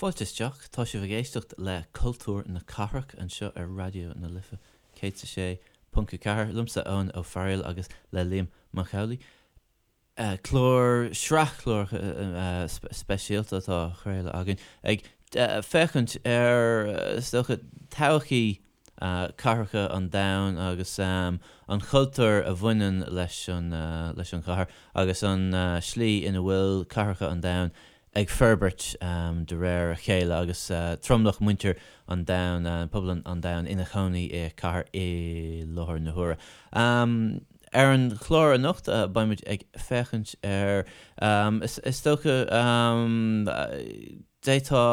Fáilte isteach, tá sibh ag éisteacht le Cultúr na Cathrach anseo ar Raidió na Life 106.4, liomsa Eoin Ó Fearghail agus le Liam Mac Amhlaigh. Clár, sraith cláracha speisialta atá á chraoladh againn ag féachaint ar, is dócha, todhchaí cathracha an domhain agus an chultúr a bhaineann leis an leis an chathair agus an slí ina bhfuil cathracha an domhain ag forbairt de réir a chéile agus tromlach muintir an domhain, pobal an domhain ina chónaí i cathair i láthair na huaire. Ar an chlár anocht beimid ag féachaint ar, is dócha, d'fhéadfá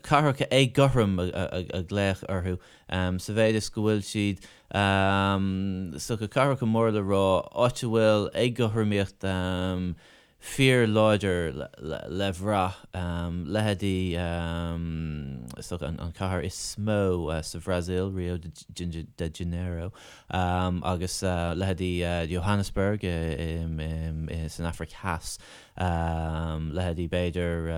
cathracha éagothrom a ghlaoch orthu sa mhéid is go bhfuil siad, is dócha, cathracha móra le rá, áit a bhfuil éagothromaíocht fíorláidir le bhrath, leithéidí, is dócha, an chathair is mó sa Bhrasaíl, Rio de Janeiro, agus leithéidí Johannesburg san Afraic Theas, leithéidí b'fhéidir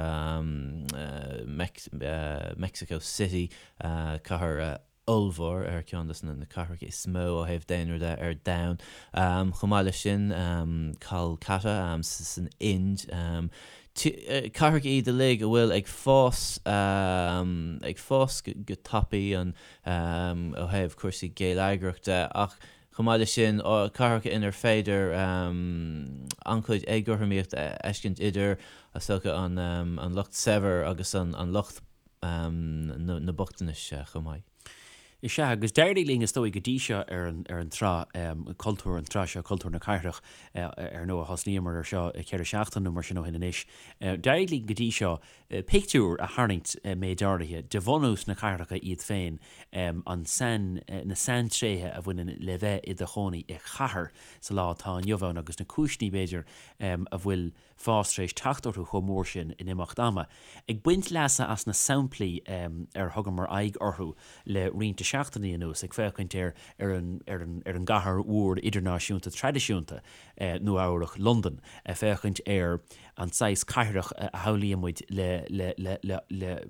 Mexico City, cathair ollmhór, ar ceann de na cathracha is mó ó thaobh daonra de ar domhan. Chomh maith leis sin, Kolkata san Ind. Cathracha iad uilig a bhfuil ag fás, ag fás go tapaidh an ó thaobh cúrsaí geilleagrach de ach chomh maith leis sin, cathracha inar féidir an-chuid éagothromaíocht a fheiscint idir, is dócha, an lucht saibhir agus an lucht na bochtanais chomh maith. Is ea, agus d'éirigh linn, is dóigh, go dtí seo ar an ar an tsraith cultúr, an tsraith seo, Cultúr na Cathrach, ar ndóigh, thosnaíomar ar seo 4 seachtaine nó mar sin ó shin anois. D'éirigh linn go dtí seo pictiúr a tharraingt, méid áirithe, de bhunús na cathracha iad féin, an sain, na saintréithe a bhaineann le bheith i do chónaí i chathair sa lá atá inniu ann agus na cúiseanna, b'fhéidir, a bhfuil fás tar éis teacht orthu chomh mór sin in imeacht ama. Ag baint leasa as na samplaí ar thugamar aghaidh orthu le roinnt de seachtainí anuas, ag féachaint ar ar an ar an ar an gcathair mhór idirnáisiúnta traidisiúnta, Nua Eabhrac, Londain, ag féachaint ar an saghas cathrach a shamhlaíonn muid le le le le le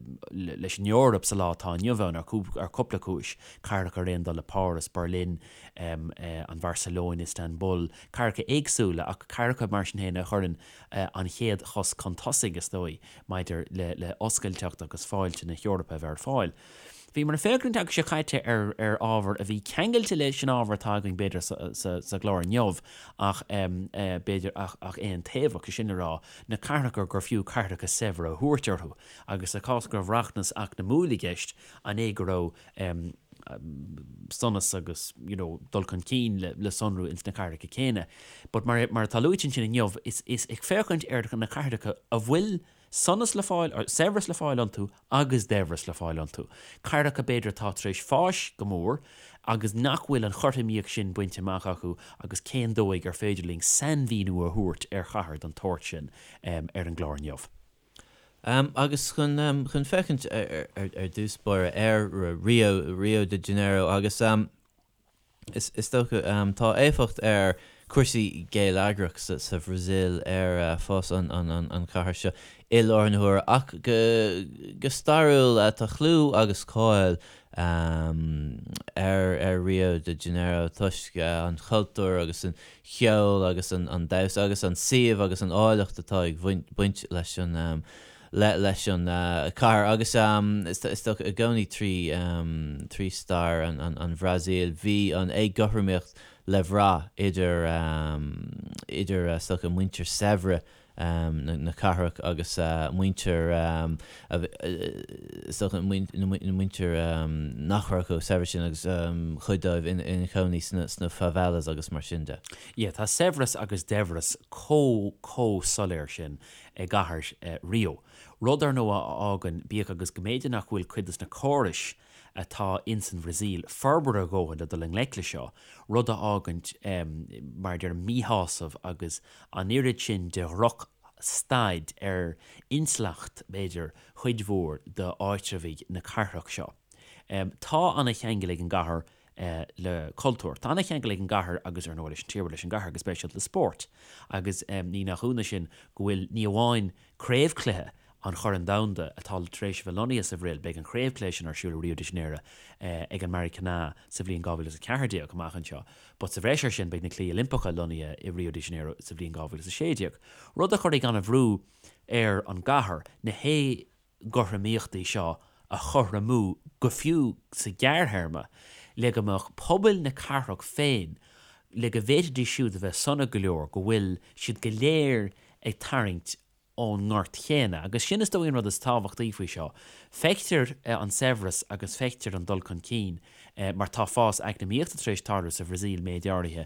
leis an Eoraip sa lá atá inniu ann ar ar cúpla cúis, cathracha ar aon dul le Páras, Berlin, an Bharcelóin, Istanbul, cathracha éagsúla ach cathracha mar sin féin a chuireann an chéad chos chun tosaigh, is dóigh, maidir le oscailteacht agus fáilte na hEorpa a bheith ar fáil. Bhíomar ag féachaint an tseachtain seo caite ar ar ábhar a bhí ceangailte leis an ábhar atá againn b'fhéidir sa gclár inniu ach b'fhéidir ach ach aontaobhach, sé sin le rá, na cathracha gur fiú cathracha saibhre a thabhairt orthu agus sa chás go raibh rachmas eacnamúil i gceist, an é go raibh sonas agus you know dul chun cinn le le sonrú ins na cathracha céanna. But mar mar atá luaite ansin inniu, is is ag féachaint ar na cathracha a bhfuil sonas le fáil, or saibhreas le fáil iontu agus daibhreas le fáil iontu. Cathracha b'fhéidir atá tar éis fáis go mór agus nach bhfuil an chothromaíocht sin bainte amach acu agus cén dóigh ar féidir linn sainmhíniú a thabhairt ar chathair den tsórt sin ar an gclár inniu. Agus chun chun féachaint ar dtús báire ar Rio, Rio de Janeiro agus is is dócha tá éifeacht ar cúrsaí geilleagrach sa sa Bhrasaíl ar fás an an an chathair seo i láthair na huaire ach go go stairiúil tá clú agus cáil ar ar Rio de Janeiro toisc an chultúr agus an cheol agus an damhsa agus an suíomh agus an áilleacht atá ag baint leis an leis an chathair agus is dócha i gcónaí trí stair an Bhrasaíl bhí an éagothromaíocht le bhrath idir idir is dócha muintir saibhre na cathrach agus muintir, is dócha, na muintir nach raibh chomh saibhir sin agus chuid dóibh ina cónaí sna favelas agus mar sin de. Yeah, tá saibhreas agus daibhreas chomh, chomh soiléir sin i gcathair Rio. Rud, ar ndóigh, a fhágann, bíodh agus go mb'fhéidir nach bhfuil cuid de na córais atá ins an Bhrasaíl forbartha a dhóthain le dul i ngleic le seo, rud a fhágann, mar a deirim, míshásamh agus an oiread sin de dhroch staid ar intleacht, b'fhéidir, chuid mhór d'áitreabhaigh na cathrach seo. Tá ana-cheangal ag an gcathair le cultúr. Tá ana-cheangal ag an gcathair agus, ar ndóigh, leis an tír, leis an gcathair go speisialta le spórt. Agus ní nach ionadh sin go bhfuil ní amháin craobhchluiche. an Choirn Domhanda atá tar éis a bheith lonnaithe sa Bhrasaíl, beidh an chraobhchluiche sin ar siúl i Rio de Janeiro ag an Maracanã sa bhliain 2014 amach anseo. But sa bhreis air sin beidh na Cluichí Oilimpeacha lonnaithe i Rio de Janeiro sa bhliain 2016, rud a chuirfidh an-bhrú ar an gcathair na héagothromaíochtaí seo a chothromú go fiú sa ghearrthéarma le go mbeadh pobail na cathrach féin, le go bhféadfaidís siúd a bheith sona go leor go bhfuil siad go léir ag tarraingt ón ngort chéanna. Agus sin is dóigh an rud is tábhachtaí faoi seo. Feictear an saibhreas agus feictear an dul chun cinn mar tá fás eacnamaíochta tar éis tarlú sa Bhrasaíl méid áirithe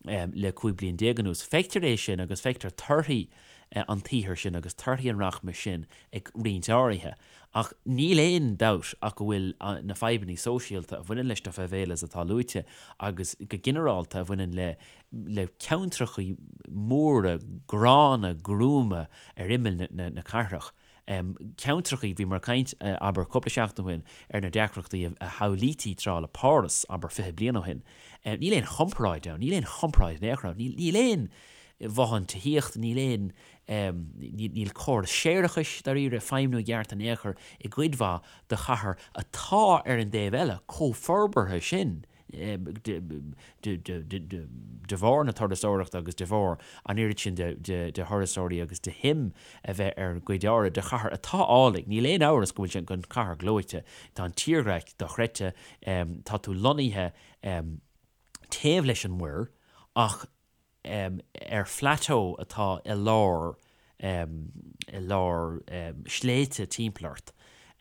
le 15 bliain anuas. Feictear é sin agus feictear torthaí an tsaothair sin agus torthaí an rachmais sin ag roinnt áirithe. Ach níl aon dabht ach go bhfuil na fadhbanna sóisialta a bhaineann leis na favelas atá luaite agus go ginearálta a bhaineann le le ceantracha móra gránna gruama ar imeall na cathrach. Ceantracha, bhíomar ag caint, abair, cúpla seachtain ó shin ar na deacrachtaí a shamhlaítí tráth le Páras, abair, 20 bliain ó shin. Níl aon chomparáid ann, níl aon chomparáid in aon chor ann. Níl aon bhothán tithíochta, níl aon, níl córas séarachais, dáiríre, ag feidhmiú i gceart in aon chor i gcuid mhaith de chathair atá ar an dtaobh eile chomh forbartha sin. de bharr na turasóireachta agus de bharr an oiread sin de thurasóirí agus de shuim a bheith ar gcuid áirithe de chathair atá álainn. Níl aon amhras go bhfuil sé an chathair gleoite. Tá an tírdhreach dochreidte. Tá tú lonnaithe taobh leis an muir ach ar phlateau atá i lár i lár sléibhte timpeall ort.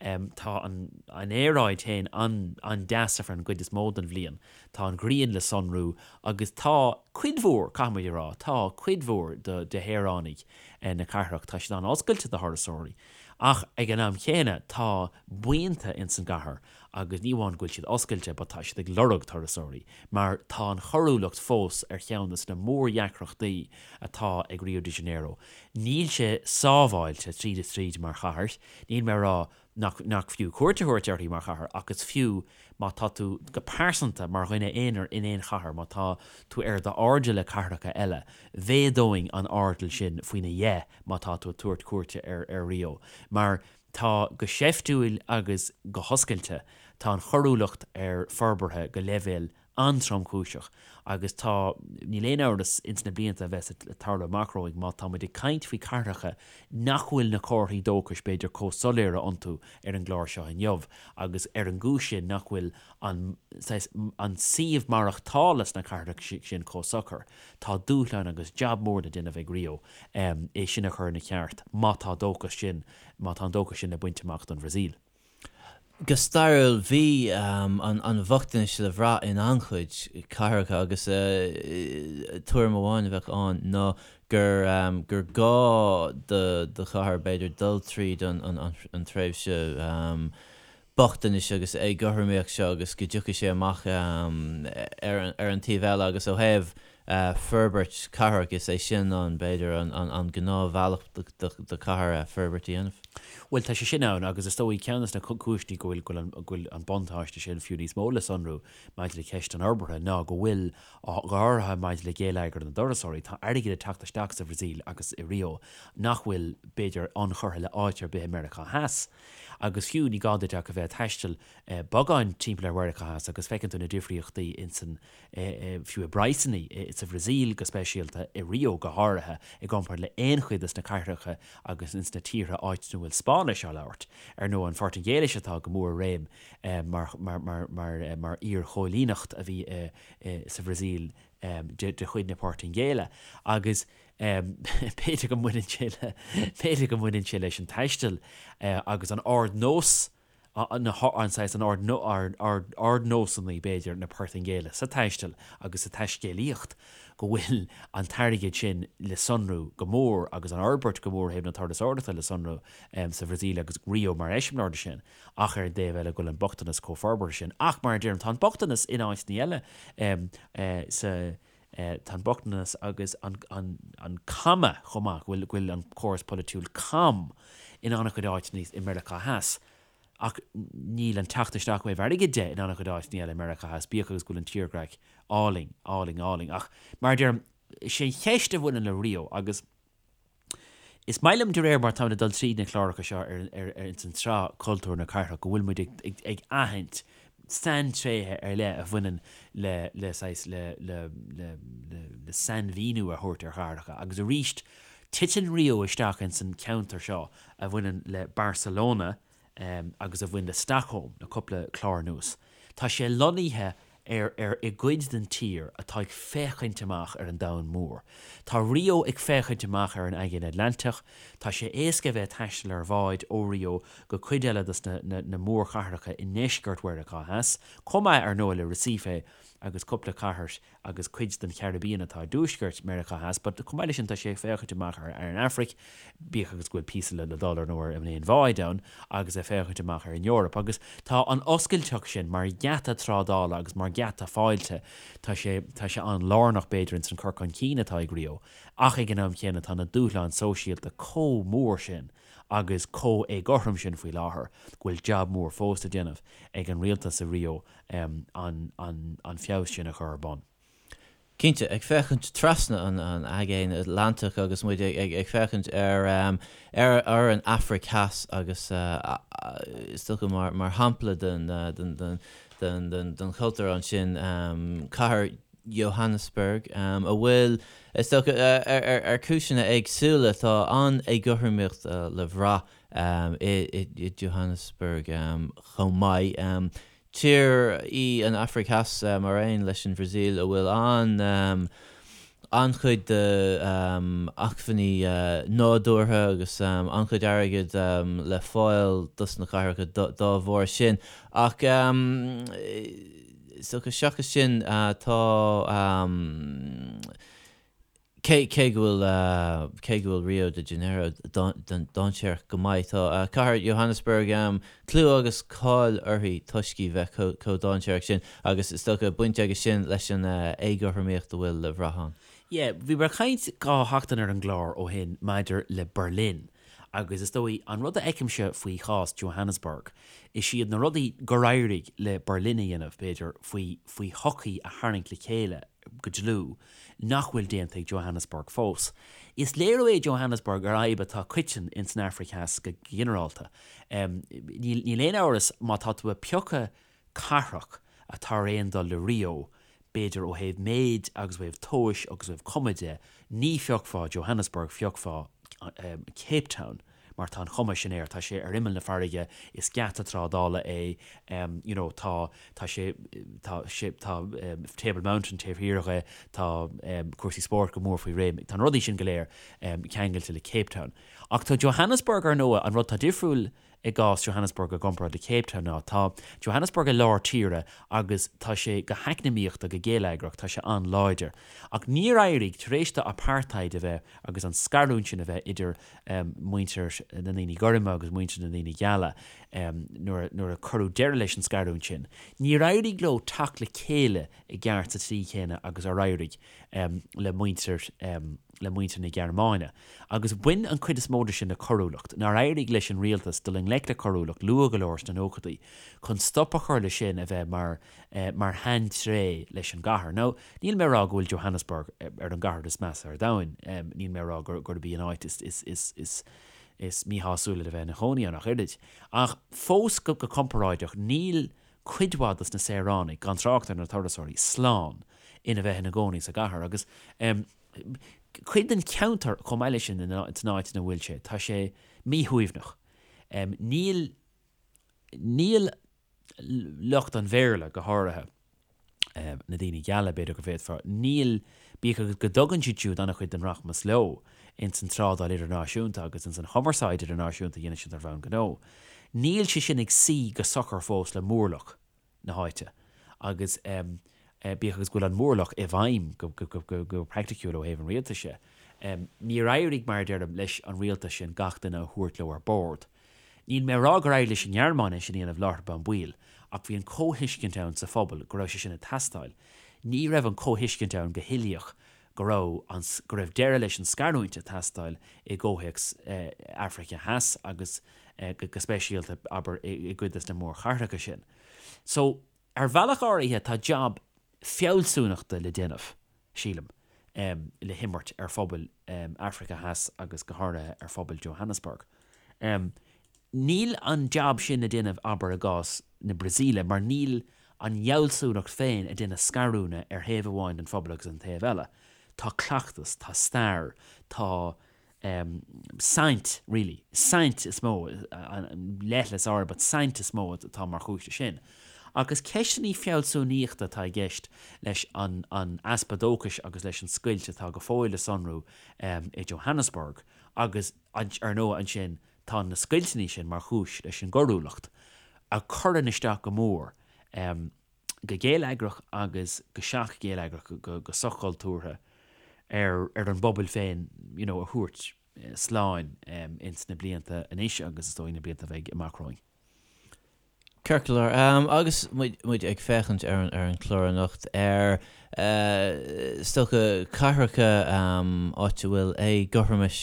Tá an aeráid féin an-deas ar feadh an gcuid is mó den bhliain. Tá an ghrian le sonrú agus tá cuid mhór, caithfidh muid a rá, tá cuid mhór de shaoránaigh na cathrach, tá siad an-oscailte do thurasóirí. Ach ag an am chéanna tá buíonta ins an gcathair agus ní amháin go bhfuil siad oscailte but tá siad ag lorg turasóirí mar tá an choiriúlacht fós ar cheann de na mórdheacrachtaí atá ag Rio de Janeiro. Níl sé sábháilte tríd is tríd mar chathair, níl mé ag rá nach nach fiú cuairt a thabhairt uirthi mar chathair ach is fiú má tá tú go pearsanta mar dhuine aonair in aon chathair, má tá tú ar d'airdeall le cathracha eile, mhéadóinn an airdeall sin faoina dheich má tá tú ag tabhairt cuairte ar ar Rio mar Tá go seiftiúil agus go hoscailte, tá an choiriúlacht ar forbartha go leibhéal an-tromchúiseach agus tá, níl aon amhras, ins na blianta a bheas ag tarlú amach romhainn, má tá muid ag caint faoi cathracha nach bhfuil na comharthaí dóchais b'fhéidir chomh soiléire iontu ar an gclár seo inniu agus ar an gcúis sin nach bhfuil an, saghas, an suíomh maireachtála sna cathracha sin chomh socair, tá dúshlán agus jab mór le déanamh ag Rio é sin a chur ina cheart má tá dóchas sin má tá an dóchas sin le baint amach don Bhrasaíl. Go stairiúil, bhí an bhochtanais le bhrath in an-chuid cathracha agus tuairim amháin a bheadh ann ná gur gur gá do chathair, b'fhéidir, dul tríd an tréimhse bochtanais agus éagothromaíocht seo agus go dtiocfaidh sé amach ar an taobh eile agus ó thaobh forbairt cathrach, is é sin an, b'fhéidir, an gnáthbhealach do chathair forbairt a dhéanamh. Bhuel, tá sé sin ann agus is dóigh ceann de na cúiseanna go bhfuil, go bhfuil an buntáiste sin fiú níos mó le sonrú maidir le ceist an fhorbartha ná go bhfuil, go háirithe maidir le géilleagar na dturasóirí, tá airgead ag teacht isteach sa Bhrasaíl agus i Rio nach bhfuil, b'fhéidir, ionchurtha le áit ar bith i Meiriceá Theas. Agus fiú ní gá duit ach a bheith ag taisteal beagán timpeall ar Mheiriceá Theas agus feiceann tú na difríochtaí insan fiú i bpraghsanna sa Bhrasaíl go speisialta, i Rio go háirithe, i gcomparáid le aon chuid des na cathracha agus ins na tíortha áit ina bhfuil Spáinnis á labhairt. Ar ndóigh, an Phortaingéilis atá go mór i réim mar iar-choilíneacht a bhí sa Bhrasaíl de chuid na Portaingéile agus b'fhéidir go mbaineann sé le, b'fhéidir go mbaineann sé leis an taisteal agus an ardnós an saghas an ardnósanna, b'fhéidir, na Portaingéile sa taisteal agus sa taiscéalaíocht, go bhfuil an t-airgead sin le sonrú go mór agus an fhorbairt go mór ó thaobh na turasóireachta le sonrú sa Bhrasaíl agus Rio mar eiseamláir de sin, ach ar an dtaobh eile go bhfuil an bochtanas chomh forbartha sin. Ach, mar a deirim, tá an bochtanas in áiteanna eile sa tá an bochtanas agus an caime chomh maith, go bhfuil an córas polaitiúil cam in an-chuid áiteanna i Meiriceá Theas. Ach níl an teacht isteach ó thaobh airgid de in an-chuid áiteanna eile i Meiriceá Theas, bíodh agus go bhfuil an tírdhreach álainn, álainn, álainn. Ach mar a deirim, is é an cheist a bhaineann le Rio agus. Is maith liom de réir mar táimid ag dul tríd na cláracha seo ar ar ar ins an tsraith Cultúr na Cathrach go bhfuil muid ag ag ag aithint saintréithe ar leith a bhaineann le le saghas le le le le le sainmhíniú a thabhairt ar chathracha agus arís titeann Rio isteach ins an ceantar seo a bhaineann le Barcelona agus a bhain le Stockholm le cúpla clár anuas. Tá sé lonnaithe ar ar i gcuid den tír atá ag féachaint amach ar an domhan mór. Tá Rio ag féachaint amach ar an Aigéan Atlantach. Tá sé éasca a bheith ag taisteal ar bháid ó Rio go cuid eile dos na na na mórchathracha i ndeisceart Mheiriceá Theas, chomh maith ar ndóigh le Recife agus cúpla cathair agus cuid den Chairibbean atá i dtuaisceart Meiriceá Theas, but chomh maith leis sin tá sé ag féachaint amach ar ar an Afraic, bíodh agus go bhfuil píosa le le dul ar ndóigh ar an aon bháid ann, agus ag féachaint amach ar an Eoraip. Agus tá an oscailteacht sin mar gheata trádála agus mar gheata fáilte, tá sé tá sé an-lárnach b'fhéidir ins an cur chun cinn atá ag Rio, ach ag an am chéanna tá na dúshláin sóisialta chomh mór sin agus chomh éagothrom sin faoi láthair go bhfuil jab mór fós le déanamh ag an rialtas i Rio an feabhas sin a chur ar bun. Cinnte, ag féachaint trasna an Aigéin Atlantach agus muid ag féachaint ar ar an Afraic Theas agus is dócha mar shampla den chultúr ansin, cathair Johannesburg, a bhfuil, is dócha, ar chúiseanna éagsúla, tá an-éagothromaíocht le bhrath i Johannesburg chomh maith. Tír í an Afraic Theas, mar aon leis an Bhrasaíl, a bhfuil an-chuid d'acmhainní nádúrtha agus an-chuid airgid le fáil dos na cathracha dá bharr sin. Ach is dócha seachas sin tá. Cé go bhfuil cé go bhfuil Rio de Janeiro dainséarach go maith, tá cathair Johannesburg clú agus cáil uirthi toisc í bheith chomh dainséarach sin agus is dócha baint aige sin leis an éagothromaíocht a bhfuil le bhrath ann. Yeah, bhíomar ag caint 2 sheachtain ar an gclár ó shin maidir le Berlin agus is dóigh an rud a fheicimse faoi chás Johannesburg, is iad na rudaí gur éirigh le Berlin a dhéanamh, b'fhéidir, faoi faoi shochaí a tharraingt le chéile go dlúth, nach bhfuil déanta ag Johannesburg fós. Is léiriú é Johannesburg ar fhadhb atá coiteann ins an Afraic Theas go ginearálta. Níl aon amhras má tá tú ag piocadh cathrach atá ar aon dul le Rio, b'fhéidir ó thaobh méid agus ó thaobh tomhais agus ó thaobh cuma de, ní phiocfá Johannesburg, phiocfá Cape Town. mar tá an chuma sin air, tá sé ar imeall na farraige, is geata trádála é, you know, tá, tá sé, tá sé, tá Table Mountain taobh thiar dhe, tá cúrsaí spóirt go mór faoi réim, tá na rudaí sin go léir ceangailte le Cape Town. Ach tá Johannesburg ar ndóigh, an rud tá difriúil i gcás Johannesburg i gcomparáid le Cape Town ná tá Johannesburg i lár tíre agus tá sé go heacnamaíochta, go geilleagrach, tá sé an-láidir. Ach níor éirigh, tar éis do apartheid a bheith agus an scarúint sin a bheith idir muintir na ndaoine gorma agus muintir na ndaoine geala, nuair a cuireadh deireadh leis an scarúint sin, níor éirigh leo teacht le chéile i gceart sa tslí chéanna agus ar éirigh le muintir le muintir na Gearmáine. Agus bhain an chuid is mó de sin le coiriúlacht, nár éirigh leis an rialtas dul i ngleic le coiriúlacht luath go leor sna nóchaidí chun stop a chur le sin a bheith mar mar shaintréith leis an gcathair. Now, níl mé ag rá go bhfuil Johannesburg ar an gcathair is measa ar domhan, níl mé ag rá gurb í an áit is is míshásúla le bheith ina chónaí ann ach oiread. Ach fós go comparáideach, níl cuid mhaith dos na saoránaigh, gan trácht ar na turasóirí, slán ina bheith ina gcónaí sa gcathair. Agus cuid den cheantar chomh maith leis sin san áit ina bhfuil sé, tá sé míshuaimhneach. Níl níl lucht an Bhéarla, go háirithe, na daoine geala, b'fhéidir go bhféadfá, níl, bíodh agus go dtugann siad siúd an-chuid den rachmas leo ins an trádáil idirnáisiúnta agus ins an chumarsáid idirnáisiúnta a dhéanann siad ar bhonn gnó, níl sé sin ag suí go socair fós le mórlach na háite agus bíodh agus go bhfuil an mórlach i bhfeidhm go praiticiúil ó thaobh an rialtais de, níor éirigh, mar a deirim, leis an rialtas sin gach duine a thabhairt leo ar bord. Níl mé ag rá gur éirigh leis an nGearmáin é sin a dhéanamh láithreach bonn baill, ach bhí an comhthuiscint ann sa phobal go raibh sé sin ag teastáil. Ní raibh an comhthuiscint ann go huilíoch go raibh an go raibh deireadh leis an scarúint ag teastáil i gcomhthéacs Afraice Theas agus go speisialta, abair, i gcuid des na mórchathracha sin. So, ar bhealach áirithe tá jab fealsúnachta le déanamh, sílim, le himirt ar phobail. Africa Theas agus go háirithe ar phobal Johannesburg. Níl an jab sin le déanamh, abair, i gcás na Brasaíle mar níl an fhealsúnacht féin ag déanamh scarúna ar thaobh amháin den phobal agus an taobh eile. Tá cleachtas, tá stair, tá saint, really, saint is mó, leithleas áirithe, but saint is mó atá mar chúis leis sin. Agus ceisteanna fealsúnaíochta atá i gceist leis an easpa dóchais agus leis an scoilt atá go fóill le sonrú i Johannesburg agus, ar ndóigh, ansin tá na scoilteanna sin mar chúis leis an gcoiriúlacht a chuireann isteach go mór go geilleagrach agus go seach-gheilleagrach, go soch-chultúrtha ar an bpobal féin you know a thabhairt slán ins na blianta anois agus is dóigh na blianta a bheidh amach romhainn. Ceart go leor. Agus muid ag féachaint ar an chlár anocht ar is dócha cathracha áit a bhfuil éagothromais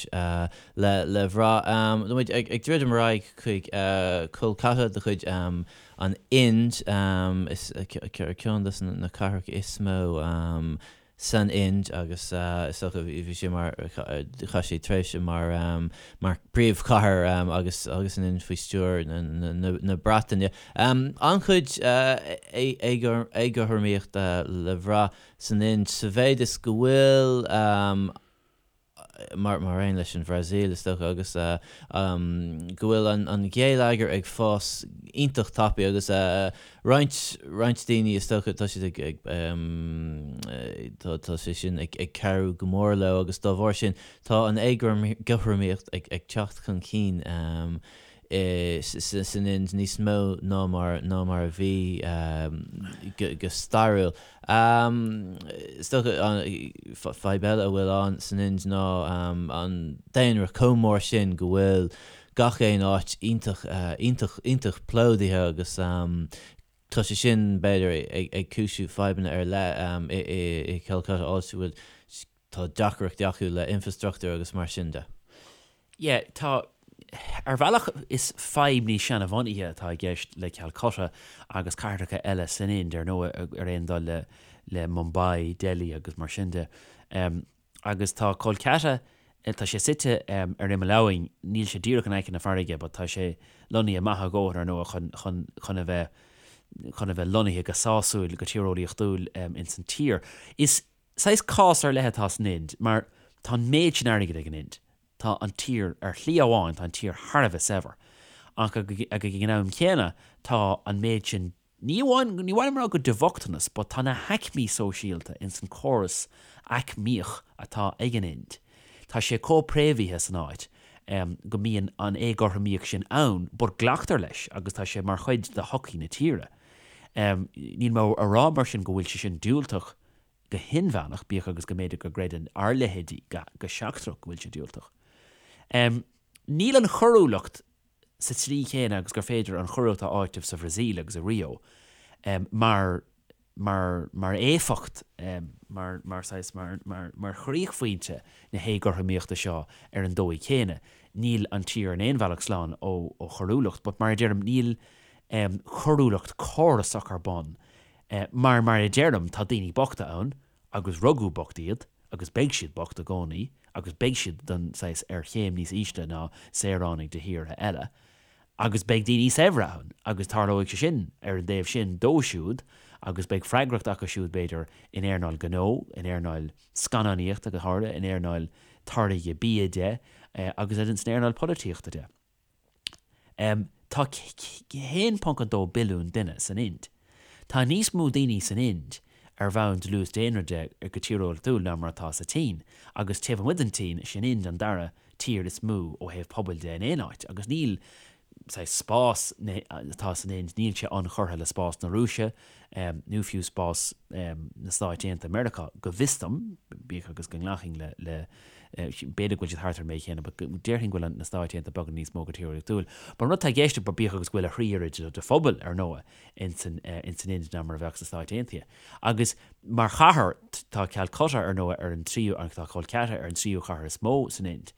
le bhrath, tá muid ag druidim ar aghaidh chuig Kolkata de chuid an Ind, is ceann de na cathracha is mó san Ind agus is dócha bhí sé mar, chaith sé tréimhse mar mar príomhchathair agus agus an Ind faoi stiúir na Breataine. An-chuid éagothromaíochta le bhrath san Ind sa mhéid is go bhfuil mar aon leis an Bhrasaíl, is dócha, agus go bhfuil an geilleagar ag fás iontach tapaidh agus roinnt, roinnt daoine, is dócha, tá siad ag, ag, tá sé sin ag cabhrú go mór leo agus dá bharr sin tá an éagothromaíocht ag teacht chun cinn san Ind níos mó ná mar ná mar a bhí go stairiúil. Is dócha fadhb eile a bhfuil ann san Ind ná an daonra chomh mór sin go bhfuil gach aon áit iontach iontach iontach plódaithe agus tá sé sin b'fhéidir ag cúisiú fadhbanna ar leith i Calcutta áit a bhfuil Tá deacrachtaí acu le infrastruchtúr agus mar sin de. Yeah, tá. Ar bhealach is fadhb níos seanabhunaithe atá i gceist le Calcutta agus cathracha eile san Ind, ar ndóigh, ar aon dul le le Mumbai, Delhi agus mar sin de. Agus tá Kolkata, tá sé suite ar imeall abhainn, níl sé díreach in aice na farraige but tá sé lonnaithe maith a dhóthain ar ndóigh chun chun chun a bheith chun a bheith lonnaithe go sásúil, go tíreolaíochtúil ins an tír. Is Saghas cás ar leith atá san Ind mar tá an méid sin airgid ag an Ind. Tá an tír, ar shlí amháin, tá an tír thar a bheith saibhir. Ach ag an am chéanna tá an méid sin, ní amháin, ní mhaith liom a rá go de bhochtanas but tá na haicmí sóisialta ins an córas aicmíoch atá ag an Ind, tá sé chomh préamhaithe san áit go mbíonn an éagothromaíocht sin ann but glactar leis agus tá sé mar chuid de shochaí na tíre. Níl mé a rá mar sin go bhfuil sé sin diúltach go hinmheánach, bíodh agus go mb'fhéidir go gcreideann ár leithéidí go seachtrach go bhfuil sé diúltach. Níl an choiriúlacht sa tslí chéanna agus gur féidir an choiriúlacht a áiteamh sa Bhrasaíl agus i Rio mar, mar, mar éifeacht, mar, mar saghas, mar, mar, mar chríochphointe na héagothromaíochta seo ar an dóigh chéanna. Níl an tír in aon bhealach slán ó choiriúlacht, but mar a deirim, níl coiriúlacht córasach ar bun Mar, mar a deirim, tá daoine bochta ann, agus rugadh bocht iad, agus beidh siad bocht i gcónaí, agus beidh siad den saghas ar chéim níos ísle ná saoránaigh de thíortha eile, agus beidh daoine saibhre ann, agus tarlóidh sé sin ar an dtaobh sin dóibh siúd, agus beidh freagracht acu siúd, b'fhéidir, in earnáil gnó, in earnáil scannánaíochta go háirithe, in earnáil táirgeadh bia de, agus san earnáil polaitíochta de. Tá 1.2 billiún duine san Ind. Tá níos mó daoine san Ind ar bhonn dlús daonra de go tíreolaíochtúil ná mar atá sa tSín, agus taobh amuigh den tSín, is í an Ind an dara tír is mó ó thaobh pobail de in aon áit, agus níl saghas spás atá san Ind, níl sé ionchurtha le spás na Rúise nó fiú spás na Stáit Aontaithe Meiriceá, go bhfios dom, bíodh agus go nglacfainn le B'fhéidir go bhfuil siad thart ar an méid chéanna but déarfainn go bhfuil na Stáit Aontaithe beagán níos mó go tíreolaíochtúil. But an rud atá i gceist, bíodh agus go bhfuil a thrí oiread de phobal, ar ndóigh, ins an Ind ná mar a bheadh sna Stáit Aontaithe. Agus mar chathair, tá Calcutta, ar ndóigh, ar an tríú, tá Kolkata ar an tríú chathair is mó san Ind.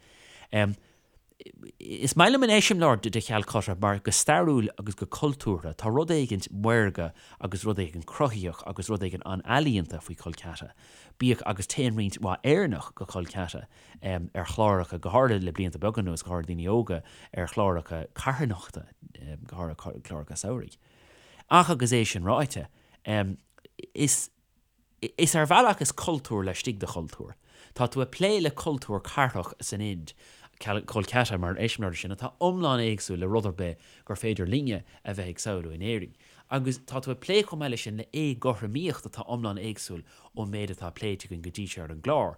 Is maith liom an eiseamláir de Chalcutta mar go stairiúil agus go cultúrtha tá rud éigint maorga agus rud éigin cruthaitheach agus rud éigin an-ealaíonta faoi Kolkata. Bíodh agus téann roinnt mhaith Éireannach go Kolkata ar chláracha, go háirithe le blianta beaga anuas, go háirithe daoine óga, ar chláracha carthanachta, go háirithe cláracha samhraidh. Ach agus é sin ráite, is. Is ar bhealach is cultúr laistigh de chultúr. Tá tú ag plé le cultúr cathrach san Ind, Kolkata mar eiseamláir de sin, atá iomlán éagsúil le rud ar bith gur féidir linne a bheith ag samhlú in Éirinn. Agus tá tú ag plé chomh maith leis sin le éagothromaíocht atá iomlán éagsúil ón méid atá pléite againn go dtí seo ar an gclár,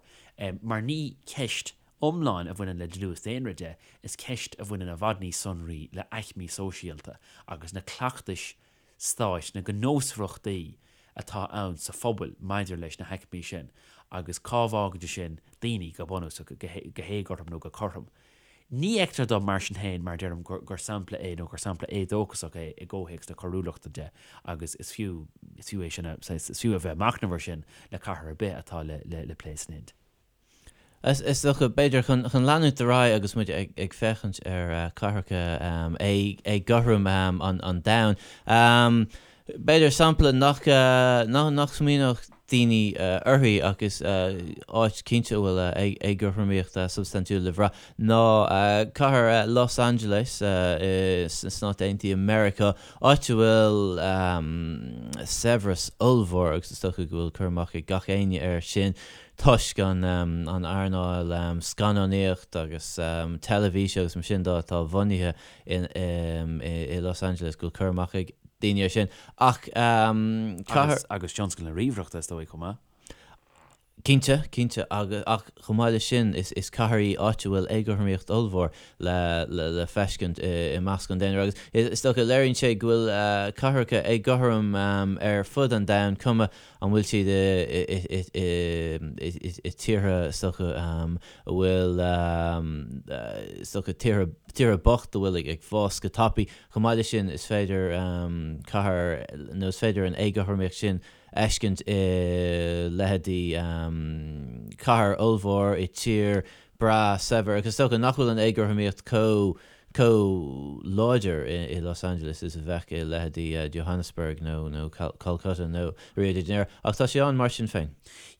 mar ní ceist iomlán a bhaineann le dlús daonra de, is ceist a bhaineann i bhfad níos sonraí le aicmí sóisialta agus na cleachtais stáit, na gnósmhaireachtaí atá ann sa phobal maidir leis na haicmí sin agus cá bhfágann sé sin daoine, go bunúsach, go héagothrom nó go cothrom. Ní fheictear dom, mar sin féin, mar a deirim, gur sampla é nó gur sampla éadóchasach é i gcomhthéacs na coiriúlachta de agus is fiú, is fiú é sin a, is fiú a bheith ag machnamh air sin le cathair ar bith atá le plé san Ind. Is dócha, b'fhéidir, chun leanúint ar aghaidh agus muid ag féachaint ar chathracha éagothrom an domhain, b'fhéidir sampla nach smaoineodh daoine uirthi ach is áit cinnte a bhfuil éagothromaíocht substaintiúil le bhrath ná cathair Los Angeles sna Stáit Aontaithe Meiriceá, áit a bhfuil saibhreas ollmhór agus is dócha go bhfuil cur amach ag gach éinne air sin. toisc an earnáil scannánaíocht agus teilifíse agus mar sin de atá bunaithe i Los Angeles, go bhfuil cur amach ag daoine air sin. Ach cathair. Agus tionscal na ríomhaireachta, is dóigh, chomh maith. Cinnte, cinnte. Ach chomh maith leis sin, is cathair í áit a bhfuil éagothromaíocht ollmhór le feiscint i measc an daonra. Agus is dócha, léiríonn sé go bhfuil cathracha éagothrom ar fud an domhain, cuma An bhfuil siad i tíortha, is dócha, a bhfuil, is dócha, tíortha, tíortha bocht a bhfuil ag fás go tapaidh. Chomh maith leis sin, is féidir cathair, nó is féidir an éagothromaíocht sin a fheiscint i leithéidí cathair ollmhór i tír breá saibhir. Agus is dócha nach bhfuil an éagothromaíocht chomh chomh láidir i Los Angeles is a bheadh i leithéidí Johannesburg nó nó Calcutta nó Rio de Janeiro, ach tá sé ann mar sin féin.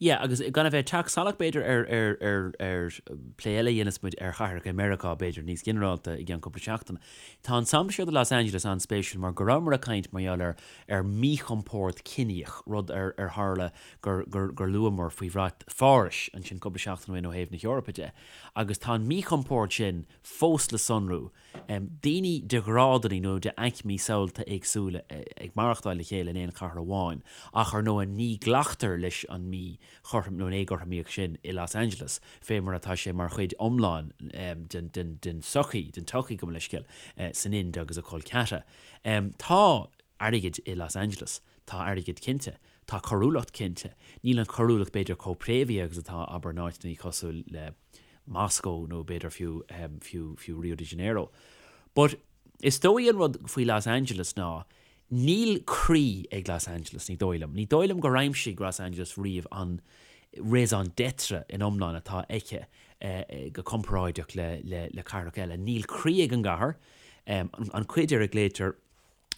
Yeah, agus gan a bheith ag teacht salach b'fhéidir ar ar ar ar plé eile a dhéanfas muid ar chathracha i Meiriceá b'fhéidir níos ginearálta i gceann cúpla seachtain. Tá an sampla seo de Los Angeles an-spéisiúil mar go rabhamar ag caint mar gheall ar ar mhíchompord ciníoch, rud ar ar tharla gur gur gur luamar faoi bhrat Phárais ansin cúpla seachtain ó shin ó thaobh na hEorpa de. Agus tá an míchompord sin fós le sonrú, daoine de ghrádanna nó de aicmí samhalta éagsúla ag maireachtáil le chéile in aon chathair amháin, ach ar ndóigh ní ghlactar leis an míchothrom nó an éagothromaíocht sin i Los Angeles, fé mar atá sé mar chuid iomlán den tsochaí, den tsochaí gabh mo leithscéal, san Ind agus i Kolkata. Tá airgead i Los Angeles, tá airgead cinnte, tá coiriúlacht cinnte, níl an choiriúlacht b'fhéidir chomh préamhaithe agus atá, abair, in áiteanna cosúil le. Moscow nó b'fhéidir fiú, fiú, fiú Rio de Janeiro. But is dóigh an rud faoi Los Angeles ná níl croí ag Los Angeles, ní dóigh liom. Ní dóigh liom gur aimsigh Los Angeles riamh an raison d'etre in iomlán atá aici go comparáideach le, le, le cathracha eile. Níl croí ag an gcathair. An cuid ar a nglaoitear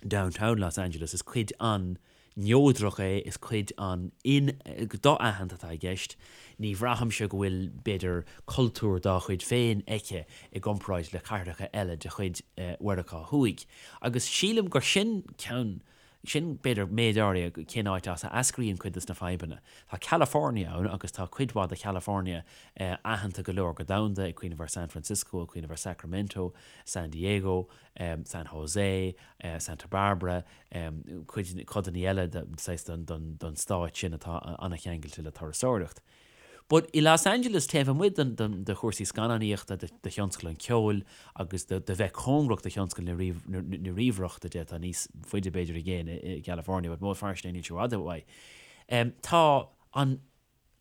Downtown Los Angeles, is cuid an-neodrach é, is cuid an-do-aitheanta atá i gceist. Ní bhraithimse go bhfuil, b'fhéidir, cultúr dá chuid féin aici i gcomparáid le cathracha eile de chuid Mheiriceá Thuaidh. Agus sílim gur sin ceann, sin, b'fhéidir, méid áirithe cén áit as a eascraíonn cuid de na fadhbanna. Tá California ann agus tá cuid mhaith de Chalifornia aitheanta go leor go domhanda, ag cuimhneamh ar San Francisco, ag cuimhneamh ar Sacramento, San Diego, San Jose, Santa Barbara, cuid, codanna eile saghas den stát sin atá an-cheangailte le turasóireacht. But i Los Angeles, taobh amuigh de chúrsaí scannánaíochta, de thionscal an cheoil agus de bheith cóngarach do thionscal na ríomhaireachta de, atá níos faide b'fhéidir i gcéin i gCalifornia, but más fíor sin níl sé i bhfad uaidh, tá an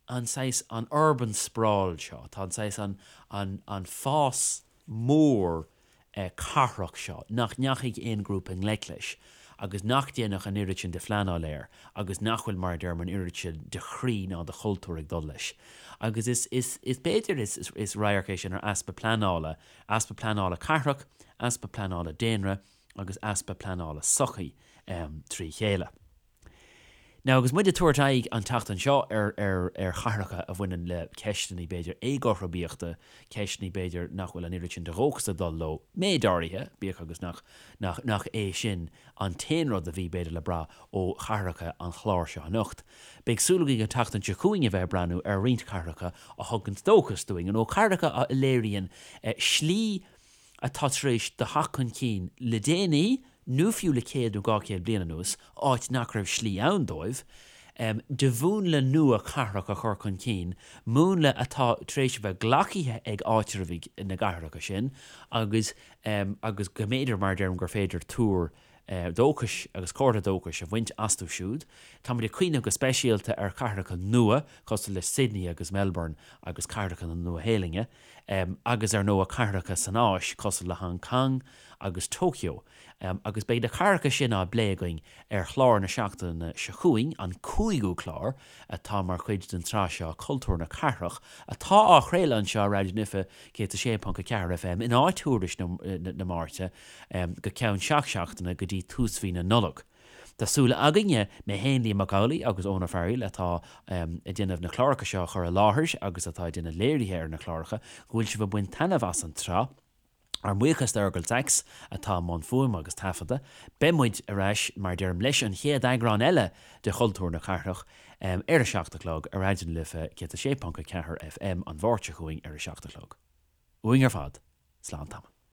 an saghas, an urban sprawl seo, tá an saghas, an, an, an fás mór cathrach seo nach ndeachaigh aon ghrúpa i ngleic leis. agus nach ndéanadh an oiread sin de phleanáil air agus nach bhfuil, mar a deirim, an oiread sin de chroí ná de chultúr ag dul leis. Agus is, is, is b'fhéidir is, is radharc é sin ar easpa pleanála, easpa pleanála cathrach, easpa pleanála daonra agus easpa pleanála sochaí trí chéile. Now agus muid ag tabhairt aghaidh an tseachtain seo ar ar ar chathracha a bhaineann le ceisteanna b'fhéidir éagothromaíochta, ceisteanna b'fhéidir nach bhfuil an oiread sin de dhóchas ag dul leo, méid áirithe, bíodh agus nach nach nach é sin an t-aon rud a bhí b'fhéidir le brath ó chathracha an chláir seo anocht. Beidh súil againn an tseachtain seo chugainn a bheith ag breathnú ar roinnt cathracha a thugann dóchas dúinn, nó cathracha a léiríonn slí atá tar éis do theacht chun cinn le déanaí, nó fiú le 100 nó 200 bliain anuas, áit nach raibh slí ann dóibh, de mhúnla nua cathrach a chur chun cinn, múnla atá tar éis a bheith glacaithe ag áitreabhaigh na gcathracha sin agus agus go mb'fhéidir, mar a deirim, gur féidir tuar dóchais agus comhartha dóchais a bhaint astu siúd. Táimid ag cuimhneamh go speisialta ar chathracha nua cosúil le Sydney agus Melbourne agus cathracha na Nua-Shéalainne. agus ar ndóigh cathracha san Áis cosúil le Hong Kong agus Tokyo, agus beidh na cathracha sin á bplé againn ar chlár na seachtaine seo chugainn, an cúigiú clár atá mar chuid den tsraith seo Cultúr na Cathrach, atá á chraoladh anseo ar Raidió na Life 106.4 FM in áit Thuairisc na Máirte go ceann seacht seachtaine go dtí tús mhí na Nollag. Tá súil againne, mé féin, Liam Mac Amhlaigh agus Eoin Ó Fearghaíl atá ag déanamh na cláracha seo a chur i láthair agus atá ag déanamh léirithe ar na cláracha, go bhfuil sibh ag baint taitneamh as an tsraith. Ár mbuíochas d'Fheargal Saxe atá i mbun fuaime agus taifeadta. Beidh muid ar ais, mar a deirim, leis an chéad eagrán eile de Chultúr na Cathrach ar a 7 a chlog ar Raidió na Life 106.4 FM an Mháirt seo chugainn ar a 7 a chlog. Uainn ar fad, slán tamall.